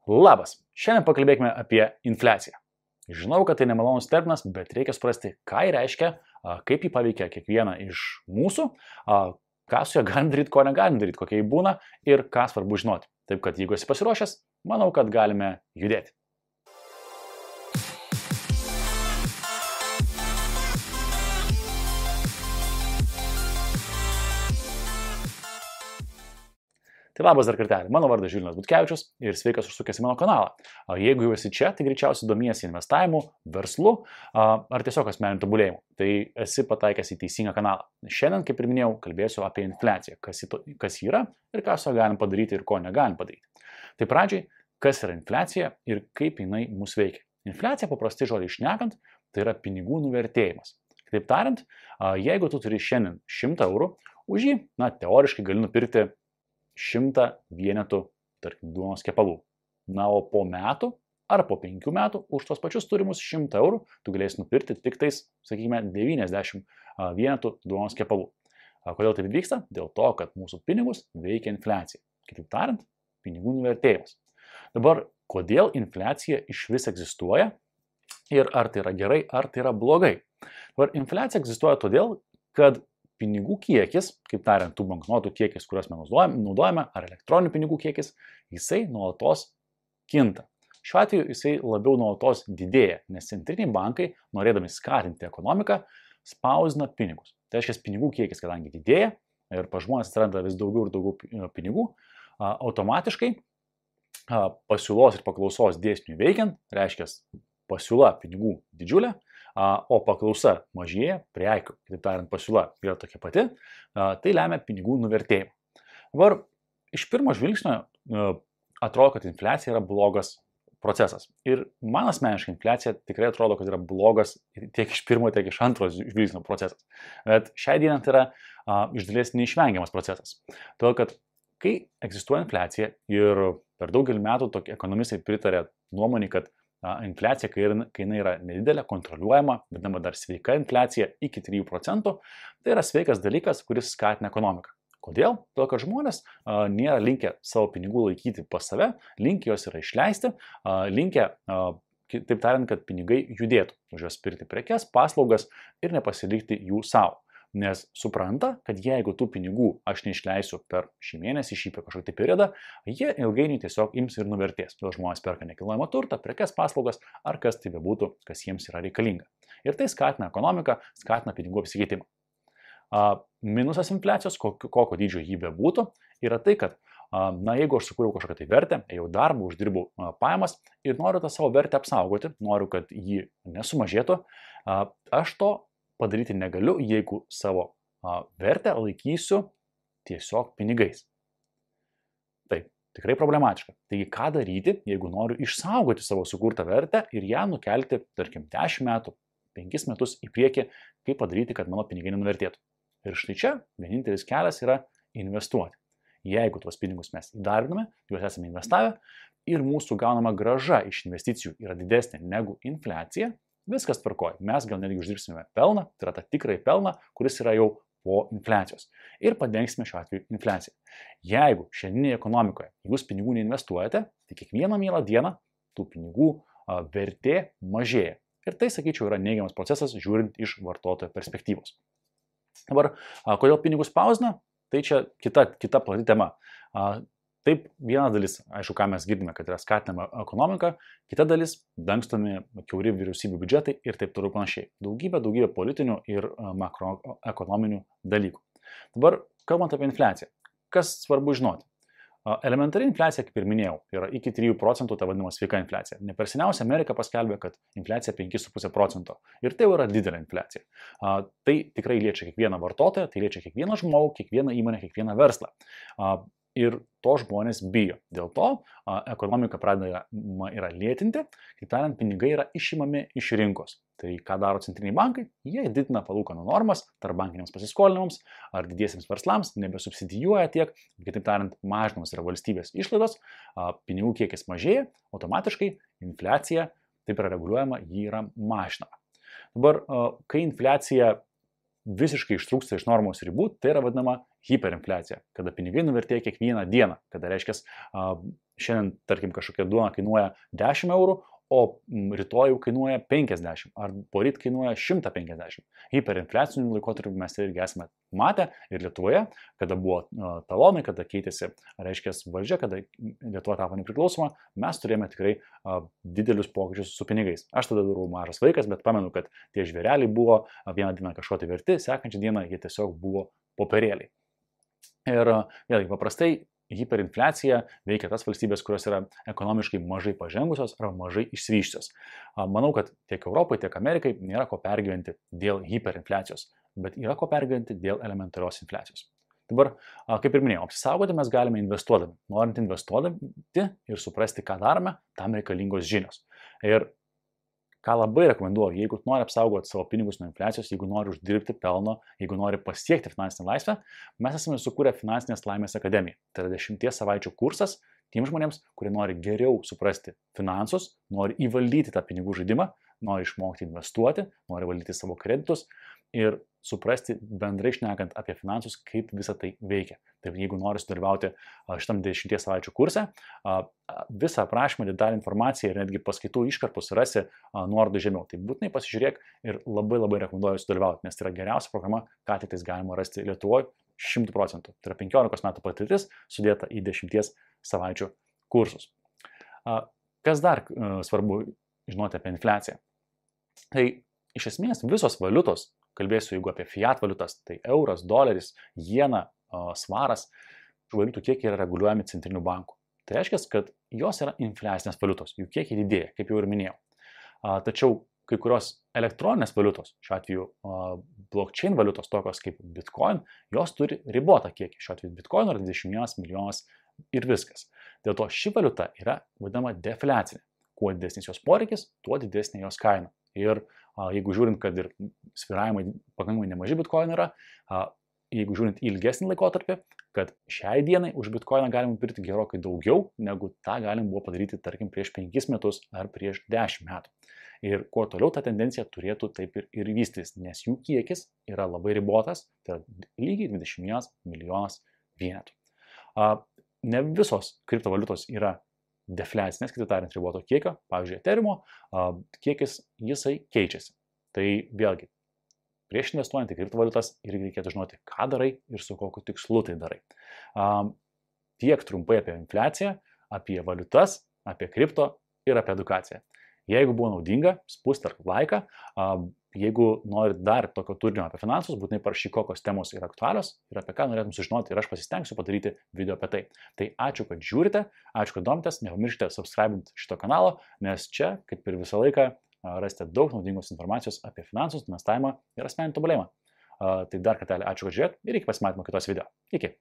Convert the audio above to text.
Labas, šiandien pakalbėkime apie infliaciją. Žinau, kad tai nemalonus terminas, bet reikia suprasti, ką jį reiškia, kaip jį paveikia kiekvieną iš mūsų, ką su ja galim daryti, ko negalim daryti, kokia jį būna ir ką svarbu žinoti. Taip kad jeigu esi pasiruošęs, manau, kad galime judėti. Tai labas dar kartelį, mano vardas Žilvinas Butkevičius ir sveikas užsukęs į mano kanalą. Jeigu jau esi čia, tai greičiausiai domiesi investavimu, verslu ar tiesiog asmeniniu tobulėjimu. Tai esi pataikęs į teisingą kanalą. Šiandien, kaip ir minėjau, kalbėsiu apie infliaciją, kas yra ir ką su ja galim padaryti ir ko negalim padaryti. Tai pradžiai, kas yra infliacija ir kaip jinai mus veikia. Infliacija, paprastai žodžiai šnekant, tai yra pinigų nuvertėjimas. Kitaip tariant, jeigu tu turi šiandien 100 eurų, už jį, teoriškai gali nupirkti 100 vienetų, tarkim, duonos kepalų. O po metų ar po 5 metų už tos pačius turimus 100 eurų tu galėsi nupirkti tik tais, sakykime, 90 vienetų duonos kepalų. Kodėl taip vyksta? Dėl to, kad mūsų pinigus veikia infliacija. Kitaip tariant, pinigų nuvertėjimas. Dabar, kodėl infliacija iš vis egzistuoja ir ar tai yra gerai, ar tai yra blogai? Dabar infliacija egzistuoja todėl, kad pinigų kiekis, kaip tariant, tų banknotų kiekis, kuriuos mes naudojame, ar elektroninių pinigų kiekis, jisai nuolatos kinta. Šiuo atveju jisai labiau nuolatos didėja, nes centriniai bankai, norėdami skatinti ekonomiką, spausdina pinigus. Tai reiškia, pinigų kiekis, kadangi didėja ir pas žmonės atsiranda vis daugiau ir daugiau pinigų, automatiškai pasiūlos ir paklausos dėsniui veikiant, reiškia, pasiūla pinigų didžiulė, o paklausa mažėja, prekių, kitaip tariant, pasiūla yra tokia pati, tai lemia pinigų nuvertėjimą. Dabar iš pirmo žvilgsnio atrodo, kad infliacija yra blogas procesas. Ir man asmeniškai infliacija tikrai atrodo, kad yra blogas tiek iš pirmo, tiek iš antro žvilgsnio procesas. Bet šiai dienai tai yra iš dalies neišvengiamas procesas. Todėl, kad kai egzistuoja infliacija ir per daugelį metų tokie ekonomistai pritarė nuomonį, kad infliacija, kai jinai yra nedidelė, kontroliuojama, vadinama dar sveika infliacija iki 3%, tai yra sveikas dalykas, kuris skatina ekonomiką. Kodėl? Todėl, kad žmonės nėra linkę savo pinigų laikyti pas save, linkę juos yra išleisti, linkę, taip tariant, kad pinigai judėtų, už juos pirkti prekes, paslaugas ir nepasilikti jų savo. Nes supranta, kad jeigu tų pinigų aš neišleisiu per šį mėnesį, šį kažkokį periodą, jie ilgainiui tiesiog ims ir nuvertės. Todėl žmonės perka nekilnojamą turtą, prekes, paslaugas ar kas tai bebūtų, kas jiems yra reikalinga. Ir tai skatina ekonomiką, skatina pinigų apsikeitimą. Minusas infliacijos, kokio dydžio jį bebūtų, yra tai, kad jeigu aš sukūriau kažkokią tai vertę, jau darbą, uždirbau pajamas ir noriu tą savo vertę apsaugoti, noriu, kad jį nesumažėtų, aš to padaryti negaliu, jeigu savo vertę laikysiu tiesiog pinigais. Taip, tikrai problematiška. Taigi, ką daryti, jeigu noriu išsaugoti savo sukurtą vertę ir ją nukelti, tarkim, 10 metų, 5 metus į priekį, kaip padaryti, kad mano pinigai nenuvertėtų. Ir štai čia vienintelis kelias yra investuoti. Jeigu tuos pinigus mes įdarbiname, juos esame investavę ir mūsų gaunama grąža iš investicijų yra didesnė negu infliacija, viskas tvarkoja. Mes gal netgi uždirbsime pelną, tai yra tą tikrąjį pelną, kuris yra jau po infliacijos. Ir padengsime šiuo atveju infliaciją. Jeigu šiandieninėje ekonomikoje jūs pinigų neinvestuojate, tai kiekvieną mielą dieną tų pinigų vertė mažėja. Ir tai, sakyčiau, yra neigiamas procesas, žiūrint iš vartotojo perspektyvos. Dabar, kodėl pinigus spausdina? Tai čia kita plati tema. Taip, viena dalis, aišku, ką mes girdime, kad yra skatinama ekonomika, kita dalis dangstomi kiauri vyriausybių biudžetai ir taip toliau panašiai. Daugybė politinių ir makroekonominių dalykų. Dabar, kalbant apie infliaciją, kas svarbu žinoti? Elementari infliacija, kaip ir minėjau, yra iki 3%, ta vadinama sveika infliacija. Ne per seniausiai Amerika paskelbė, kad infliacija 5,5% ir tai jau yra didelė infliacija. Tai tikrai liečia kiekvieną vartotoją, tai liečia kiekvieną žmogų, kiekvieną įmonę, kiekvieną verslą. Ir to žmonės bijo. Dėl to ekonomika pradeda lėtinti, kaip tariant, pinigai yra išimami iš rinkos. Tai ką daro centriniai bankai? Jie didina palūkanų normas tarpbankiniams pasiskolinimams ar didiesiems verslams, nebesubsidijuoja tiek, kitaip tariant, mažinamos yra valstybės išlaidos, pinigų kiekis mažėja, automatiškai infliacija, taip yra reguliuojama, ji yra mažinama. Dabar, kai infliacija visiškai ištrūksta iš normos ribų, tai yra vadinama hiperinfliacija, kada pinigai nuvertėja kiekvieną dieną, kada reiškia, šiandien, tarkim, kažkokia duona kainuoja 10 eurų, o rytoj kainuoja 50, ar poryt kainuoja 150. Hiperinfliacinių laikotarpių mes irgi esame matę ir Lietuvoje, kada buvo talonai, kada keitėsi, reiškia, valdžia, kada Lietuva tapo nepriklausoma, mes turėjome tikrai didelius pokyčius su pinigais. Aš tada buvau mažas vaikas, bet pamenu, kad tie žvėreliai buvo vieną dieną kažko tai verti, sekančią dieną jie tiesiog buvo popierėliai. Ir vėlgi, paprastai hiperinfliacija veikia tas valstybės, kurios yra ekonomiškai mažai pažengusios arba mažai išsivyščiusios. Manau, kad tiek Europai, tiek Amerikai nėra ko pergyventi dėl hiperinfliacijos, bet yra ko pergyventi dėl elementarios infliacijos. Dabar, kaip ir minėjau, apsisaugoti mes galime investuodami. Norint investuodami ir suprasti, ką darome, tam reikalingos žinios. Ir ką labai rekomenduoju, jeigu nori apsaugoti savo pinigus nuo infliacijos, jeigu nori uždirbti pelno, jeigu nori pasiekti finansinę laisvę, mes esame sukūrę Finansinės laimės akademiją. Tai yra 10 savaičių kursas tiems žmonėms, kurie nori geriau suprasti finansus, nori įvaldyti tą pinigų žaidimą, nori išmokti investuoti, nori valdyti savo kreditus ir suprasti bendrai šnekant apie finansus, kaip visa tai veikia. Tai jeigu nori sudalyvauti šitam 10 savaičių kurse, visą aprašymą, detalę informaciją ir netgi paskaitų iškarpus rasi nuorodų žemiau. Tai būtinai pasižiūrėk ir labai rekomenduoju sudalyvauti, nes tai yra geriausia programa, ką tik tais galima rasti Lietuvoje 100%. Tai yra 15 metų patirtis sudėta į 10 savaičių kursus. Kas dar svarbu žinoti apie infliaciją? Tai iš esmės visos valiutos, kalbėsiu jeigu apie fiat valiutas, tai euras, doleris, jena, svaras, valiutų kiekiai yra reguliuojami centrinių bankų. Tai reiškia, kad jos yra infliacinės valiutos, jų kiekiai didėja, kaip jau ir minėjau. Tačiau kai kurios elektroninės valiutos, šiuo atveju blockchain valiutos, tokios kaip Bitcoin, jos turi ribotą kiekį. Šiuo atveju Bitcoin yra 21 milijonas ir viskas. Dėl to ši valiuta yra vadinama defliacinė. Kuo didesnis jos poreikis, tuo didesnė jos kaina. Ir jeigu žiūrint, kad ir svyravimai pakankamai nemaži Bitcoin yra, jeigu žiūrint į ilgesnį laikotarpį, kad šiai dienai už Bitcoiną galim pirkti gerokai daugiau, negu tą galim buvo padaryti, tarkim, prieš 5 metus ar prieš 10 metų. Ir kuo toliau ta tendencija turėtų taip ir vystytis, nes jų kiekis yra labai ribotas, tai yra lygiai 21 milijonas vienetų. Ne visos kriptovaliutos yra defliacinės, kitaip tariant, riboto kiekio, pavyzdžiui, Ethereumo kiekis jisai keičiasi. Tai vėlgi, prieš investuojant į kriptovaliutas irgi reikėtų žinoti, ką darai ir su kokiu tikslu tai darai. Tiek trumpai apie infliaciją, apie valiutas, apie kripto ir apie edukaciją. Jeigu buvo naudinga, spustelk laiką. Jeigu nori dar tokio turinio apie finansus, būtinai parašyk, kokios temos yra aktualios ir apie ką norėtum sužinoti ir aš pasistengsiu padaryti video apie tai. Tai ačiū, kad žiūrite, ačiū, kad domitės, nepamirškite subscribinti šito kanalo, nes čia, kaip ir visą laiką, rasite daug naudingos informacijos apie finansus, investavimą ir asmeninį tobulėjimą. Tai dar kartelį ačiū, kad žiūrėt ir iki pasimatymo kitos video. Iki.